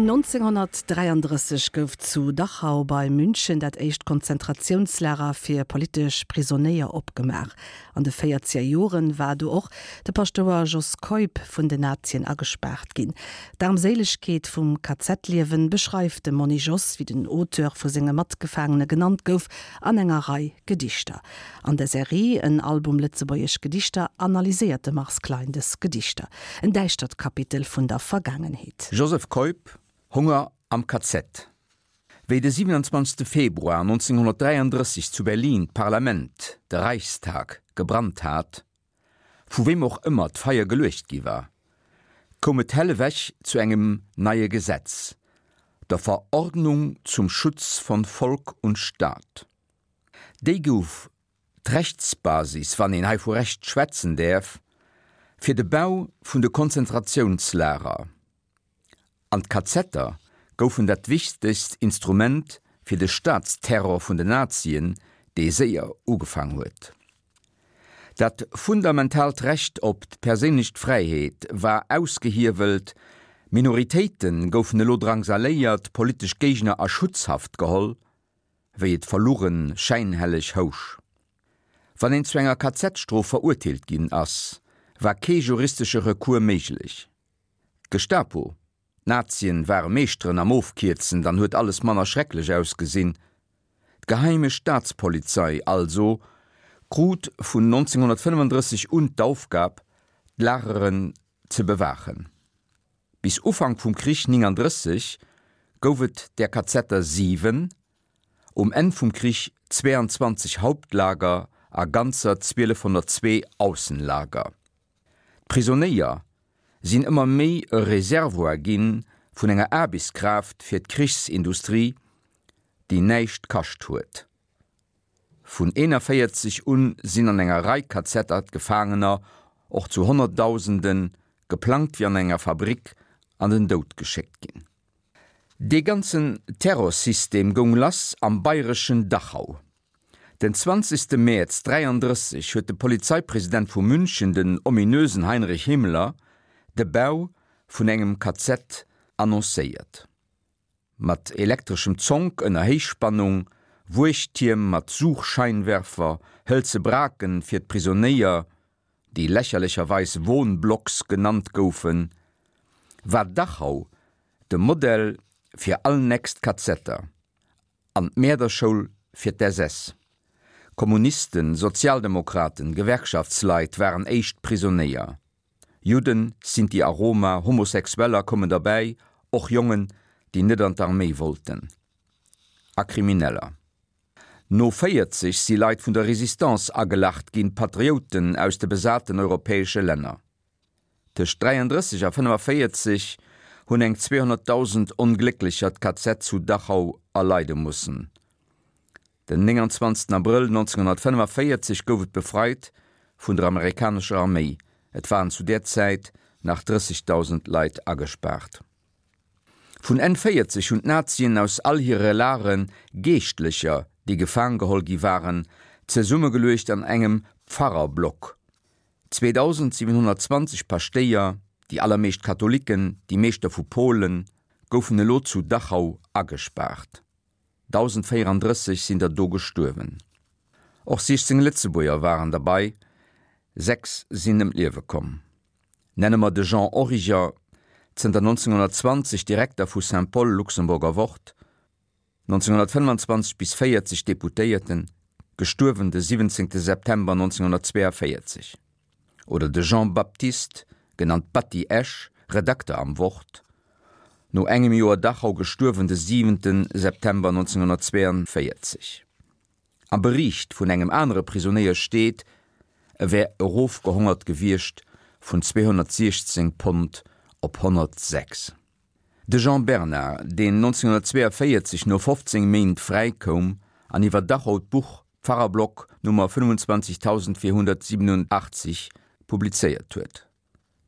1933 gouf zu Dachau bei München dat éischt Konzentratiounslager fir politesch Prisonéier opgemaach. An de véierzeger Joren war do och de Paschtouer Jos Keup vun den Nazien agespaart ginn. D'Aarmséilegkeet vum KZ-Liewen beschreift de Monni Jos, wéi den Auteur vu senge Matgefaangene genannt gouf, an enger Rei Gedichter. An der Serie En Album lëtzebuergesch Gedichter analyséiert de Mars Klein dës Gedichter. En däischtert Kapitel vun der Vergaangenheet. Joseph Keup, Honger am KZ. Wéi de 27. Februar 1933 zu Berlin d'Parlament, de Reichstag, gebrannt hat, vu weem och ëmmer d'Feier geluecht gi war, koum et hellewech zu engem neie Gesetz, der Verordnung zum Schutz von Volk und Staat. Déi gouf d'Rechtsbasis, wann een hei vu Recht schwätzen däerf, fir de Bau vun de Konzentratiounslager. An d'Kazetter goufen dat wichtegst Instrument fir de Staatsterror vun den Nazien, dee séier ugefaang huet. Dat fundamentaalt Recht op d'perséinlech Fräiheet war ausgehiewelt, Minoritéite goufen elo drangsaléiert, politesch Géigner a Schutzhaft geholl, wéi et verlugen schäinhelleg housch. Wann een zu enger KZ-Strof verurteelt ginn ass, war kee juristesche Recours méiglech. D'Gestapo, d'Nazien ware Meeschteren am Ofkierzen, dann huet alles manner schrecklech ausgesinn. D'Geheime Staatspolizei also krut vun 1935 un d'Aufgab, d'Lageren ze bewaachen. Bis Ufank vum Krich 39 gouf et där Kazetter 7, um Enn vum Krich 22 Hauptlager a ganzer 1202 Aussenlager. D'Prisonéier sinn ëmmer méi e Reservoir gi vun enger Aarbechtskraaft fir d'Krichsindustrie, déi näischt kascht huet. Vun 41 un sinn an enger Rei Kazetter d'Gefaangener, och zu Honnertdausenden, geplangt wéi an enger Fabrik, an den Doud geschéckt ginn. Dee ganzen Terrorsystem goung lass am bayreschen Dachau. Den 20. Mäerz 33 huet de Polizeipresident vu München, den ominösen Heinrich Himmler, de Bau vun engem KZ annoncéiert. Mat elektreschem Zonk ënner Héichspannung, Wuechttierm mat Suchscheinwerfer, hëlze Braken fir d'Prisonéier, déi lächerlecherweis Wohnblocks genannt goufen, war Dachau de Modell fir all nächst Kazetter an d'Mäerderschoul fir d'SS. Kommunisten, Sozialdemokraten, Gewerkschaftsleit waren éischt Prisonéier. Judden, Sinti a Roma, Homosexueller koumen derbäi, och Jongen, déi net an d'Arméi wollten. A Krimineller. No 40 si Leit vun der Résistance agelacht ginn, Patrioten aus de besaten europäesche Länner. Tëscht 33 a 45 hunn eng 200.000 Onglécklecher d'KZ zu Dachau erleide mussen. Den 29 Abrëll 1945 gouf et befreit vun der amerikanescher Arméi, et waren zu där Zäit nach 30.000 Leit agespaart. Vun Enn 40 hunn d'Nazien aus all hire Lagere Geeschtlecher, déi gefaang geholl gi waren, zesummegeluecht an engem Pfarrerblock. 2.720 Paschtéier, déi allermeescht Katholiken, déi meescht der vu Polen, goufen elo zu Dachau agespaart. 1.034 sinn der do gestuerwen. Och 16 Lëtzebuerger waren derbei, 6 sinn ëm d'Liewe komm. Nenne mer de Jean Origer, zënter 1920 Direkter vu Saint-Paul, Luxemburger Wort, 1925 bis 40 Deputéierten, gestuerwen de 17 September 1942. Oder de Jean Baptiste, genannt Batty Esch, Redakter am Wort, no engem Joer Dachau gestuerwen de 7 September 1942. Am Bericht vun engem anere Prisonéier steet, e wär erofgehongert gewiescht vun 216 Pond op 106. De Jean Bernard, deen 1942 no 15 Méint fräikoum an iwwer Dachau d'Buch Pfarrerblock Nummer 25487 publizéiert huet.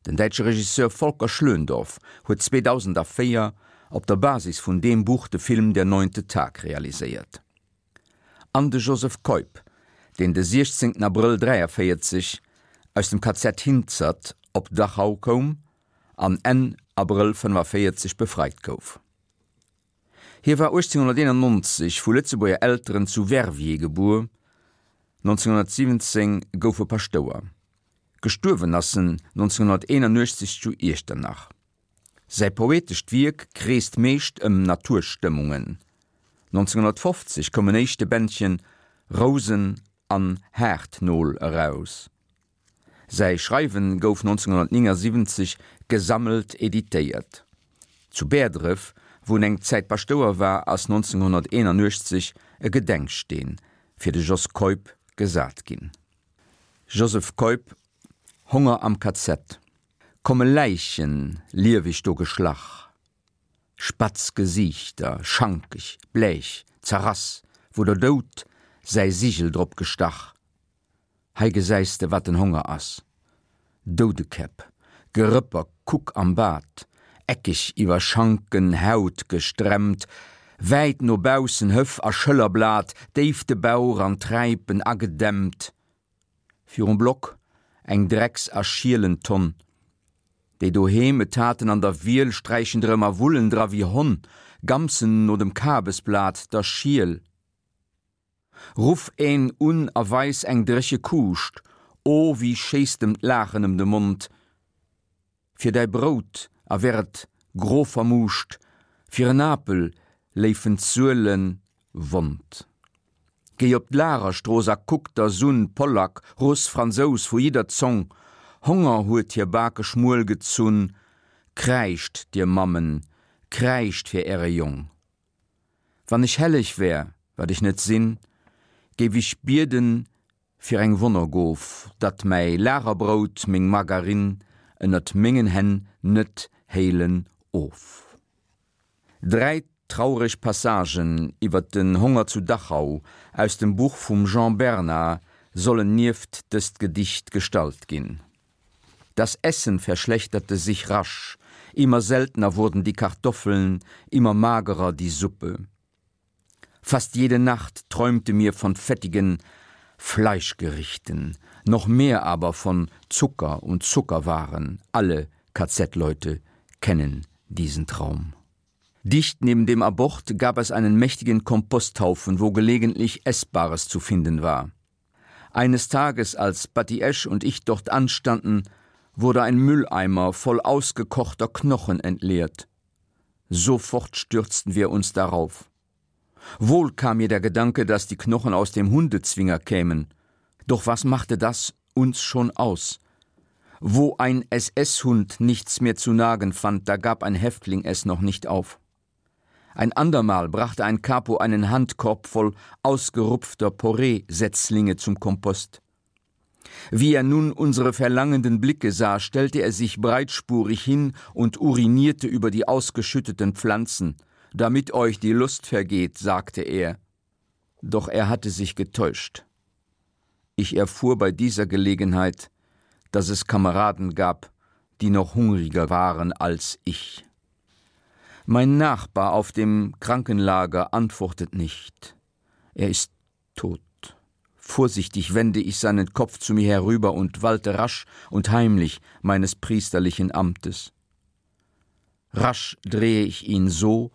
Den däitsche Regisseur Volker Schlöndorff huet 2004 op der Basis vun deem Buch de Film Der neunte Tag realiséiert. An de Joseph Keup, deen de 16 Abrëll 43 aus dem KZ Hinzert op Dachau koum an Enn Abrëll 45 befreit gouf. Hie war 1891 vu Lëtzebuerger Elteren zu Verviers gebuer, 1917 gouf e Paschtouer. Gestuerwen ass en 1981 zu Iechternach. Säi poetescht Wierk kreest meescht ëm Naturstëmmungen. 1950 koum en éischte Bändchen Rousen an Haartnol eraus. Säi Schreiwen gouf 1979 gesammelt editéiert. Zu Bäerdref, wou en eng Zäit Paschtouer war, ass 1981 e Gedenksteen fir de Jos Keup gesat ginn. Joseph Keup, Honger am KZ. Komme Läichen lieweg do geschlach, Spatz Gesiichter, schankeg, bleech, zerrass, wou der Doud säi Sigel drop gestach. Hei gesäis de wat den Honger ass, Doudekäpp, Gerëpper, kuck am Bad, eckeg iwwer Schanken Haut gestremmt, wäit no baussen Hëff a Schëllerblat, déif de Bauch an Träipen agedämmt. Virum Block eng Drecks a Schielentonn. Déi doheem et haten an der Wiel sträichen drëm a wullen dra wéi Honn, gamsen no dem Kabesblat, der Schiel. Ruff een un a weis eng dréche Kuuscht, o wéi schéisst em d'Laachen ëm de Mond! Fir däi Brout, a wär et gro vermuuscht, fir en Apel léifen d'Suele wond. Géi op d'Lagerstrooss a kuck der s'un, Pollack, Russ, Fransous, vu jidder Zong, Honger huet hir Bake schmuel gezunn. Kräischt, dir Mammen, kräischt fir äre Jong! Wann ech helleg wär, wat ech net sinn, géif ech bieden fir eng Wonnergof, datt mäi Lagerbrout, meng Margarine ënnert mengen Hänn net héilen of. Dräi traureg Passagen iwwer den Honger zu Dachau aus dem Buch vum Jean Bernard sollen nieft dëst Gedicht gestallt ginn. Das Essen verschlechterte sich rasch, immer seltener wurden die Kartoffeln, immer magerer die Suppe. Fast jede Nacht träumte mir von fettigen Fleischgerichten, noch mehr aber von Zucker und Zuckerwaren. Alle KZ-Leute kennen diesen Traum. Dicht neben dem Abort gab es einen mächtigen Komposthaufen, wo gelegentlich Essbares zu finden war. Eines Tages, als Batty Esch und ich dort anstanden, wurde ein Mülleimer voll ausgekochter Knochen entleert. Sofort stürzten wir uns darauf. Wohl kam mir der Gedanke, dass die Knochen aus dem Hundezwinger kämen. Doch was machte das uns schon aus? Wo ein SS-Hund nichts mehr zu nagen fand, da gab ein Häftling es noch nicht auf. Ein andermal brachte ein Capo einen Handkorb voll ausgerupfter Porree-Setzlinge zum Kompost. Wie er nun unsere verlangenden Blicke sah, stellte er sich breitspurig hin und urinierte über die ausgeschütteten Pflanzen. Damit euch die Lust vergeht, sagte er. Doch er hatte sich getäuscht. Ich erfuhr bei dieser Gelegenheit, dass es Kameraden gab, die noch hungriger waren als ich. Mein Nachbar auf dem Krankenlager antwortet nicht. Er ist tot. Vorsichtig wende ich seinen Kopf zu mir herüber und walte rasch und heimlich meines priesterlichen Amtes. Rasch drehe ich ihn so,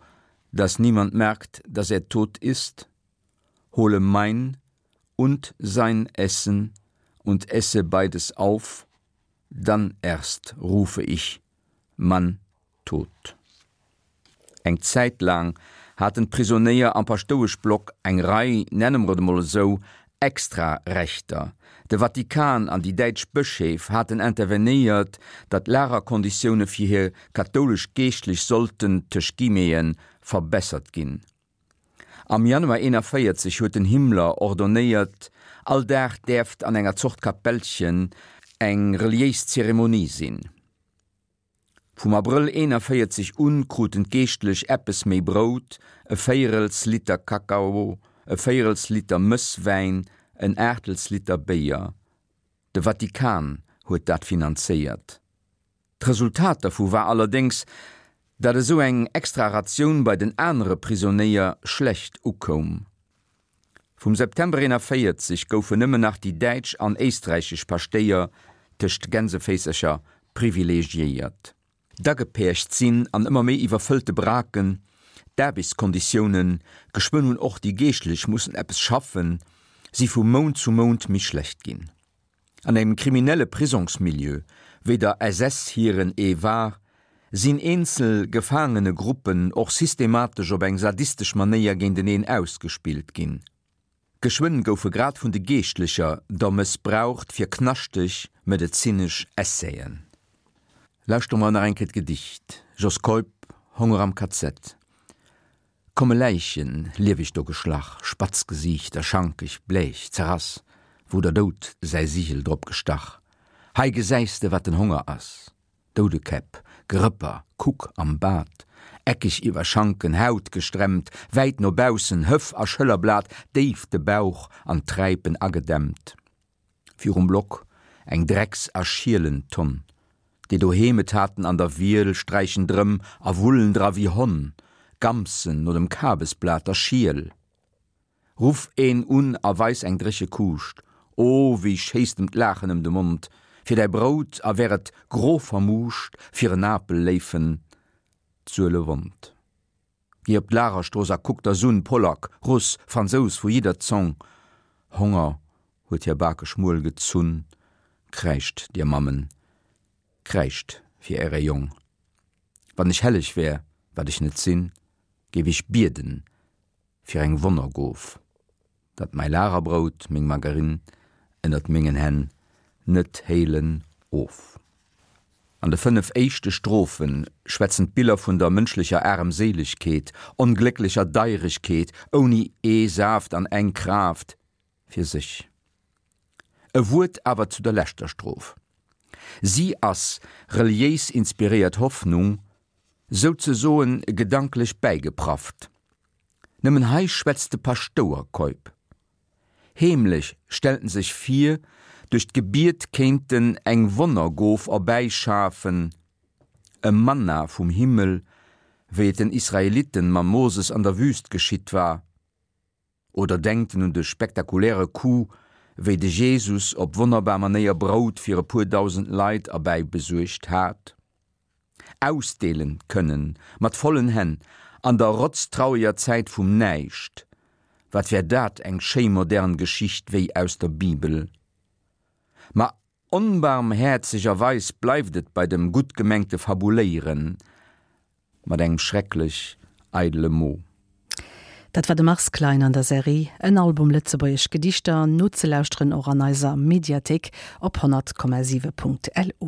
dass niemand merkt, dass er tot ist, hole mein und sein Essen und esse beides auf, dann erst rufe ich Mann tot. Eng Zäit laang haten d'Prisonéier am Paschtoueschblock eng Rei, nenne mer et emol esou, Extra-Rechter. De Vatikan an déi däitsch Bëscheef haten intervenéiert, datt d'Lagerkonditioune fir hir kathoulesch Geeschtlech sollten, tëscht Guillemeten, verbessert ginn. Am Januar 41 huet den Himmler ordonnéiert, all Dag däerft an enger Zort Kapellchen eng reliéis Zeremonie sinn. Vum Abrëll 41 un kruten d'Geeschtlech eppes méi Brout, e véierels Liter Kakao, e véierels Liter Mësswäin, en Aachtels Liter Béier. De Vatikan huet dat finanzéiert. D'Resultat dervu war allerdéngs, datt esou eng extra Ratioun bei den anere Prisonéier schlecht ukoum. Vum September 41 goufen nëmmen nach déi däitsch an éisträichesch Paschtéier tëscht Gänseféisercher privilegiéiert. D'Agepercht sinn an ëmmer méi iwwerfëllte Braken. D'Aarbechtskonditiounen, geschwënn hunn och déi Geeschtlech mussen eppes schaffen, si vu Mount zu Mount méi schlecht ginn. An engem kriminelle Prisongsmilieu, wéi der SS hiren ee war, sinn eenzel Gefaangenegruppen och systematesch op eng sadistesch Manéier géinteneen ausgespillt ginn. Geschwënn goufe grad vun de Geeschtlecher der mëssbraucht fir knaschteg medezinesch Essaien. Lauschtere mer nach eng Kéier d'Gedicht, Jos Keup, Honger am KZ. Komme Läichen, lieweg do geschlach, spatz Gesiichter, schankeg, bleech, zerrass, wou der Doud säi Sigel drop gestach. Hei gesäis de, wat den Honger ass. Doudekäpp, Gerëpper, kuck am Bad, eckeg iwwer Schanken, Haut gestremmt, wäit no baussen, Hëff a Schëllerblat, déif de Bauch an d'Träipen agedämmt. Virum Block eng Drecks a Schielentonn. Déi doheem et haten an der Wiel, sträichen drëm a wullen dra wéi Honn, Gamsen no dem Kabesblat der Schiel. Ruff een un a weis eng dréche Kuuscht, o wéi schéisst em d'Laachen ëm de Mond, fir däi Brout, a wär et gro vermuuscht, fir en Apel léifen d'Suele wond. Géi op d'Lagerstrooss a kuck der s'un, Polack, Russ, Fransous vu jidder Zong, Honger huet hir Bake schmuel gezunn, kräischt, dir Mammen, kräischt fir äre Jong. Wann ech helleg wär, wat ech net sinn, géif ech bieden fir eng Wonnergof, datt mäi Lagerbrout, meng Margarine ënnert mengen Hänn net héilen of. An de 5 éischte Strophe schwätzen d'Biller vun der mënschlecher Aremséilegkeet, onglécklecher Deiregkeet, ouni ee Saaft an eng Kraaft fir sech. E Wuert awer zu der leschter Stroph. Si ass reliéis inspiréiert Hoffnung, souzesoen gedanklech bäigeprafft. Nëmmen hei schwätzt de Paschtouer Keup. Heemlech stellt en sech vir, duerch d'Gebiet kéint en eng Wonnergof erbäischafen, e Manna vum Himmel, wéi et den Israeliten mam Moses an der Wüst geschitt war. Oder denkt en un de spektakuläre Coup, wéi de Jesus op wonnerbar Manéier Brout fir e puer dausend Leit erbäibesuergt hat? Ausdeelen kënnen, mat vollen Hänn, an der rotztraueger Zäit vum Näischt, wat wär dat eng schéi modern Geschicht wéi aus der Bibel! Ma onbarmhäerzegerweis bleift et bei dem gutt gemengte Fabuléieren mat engem schrecklech eidele Mo. Dat war de Mars Klein an der Serie En Album lëtzebuergesch Gedichter, nozelauschteren och an eiser Mediathéik op 100,7.lu.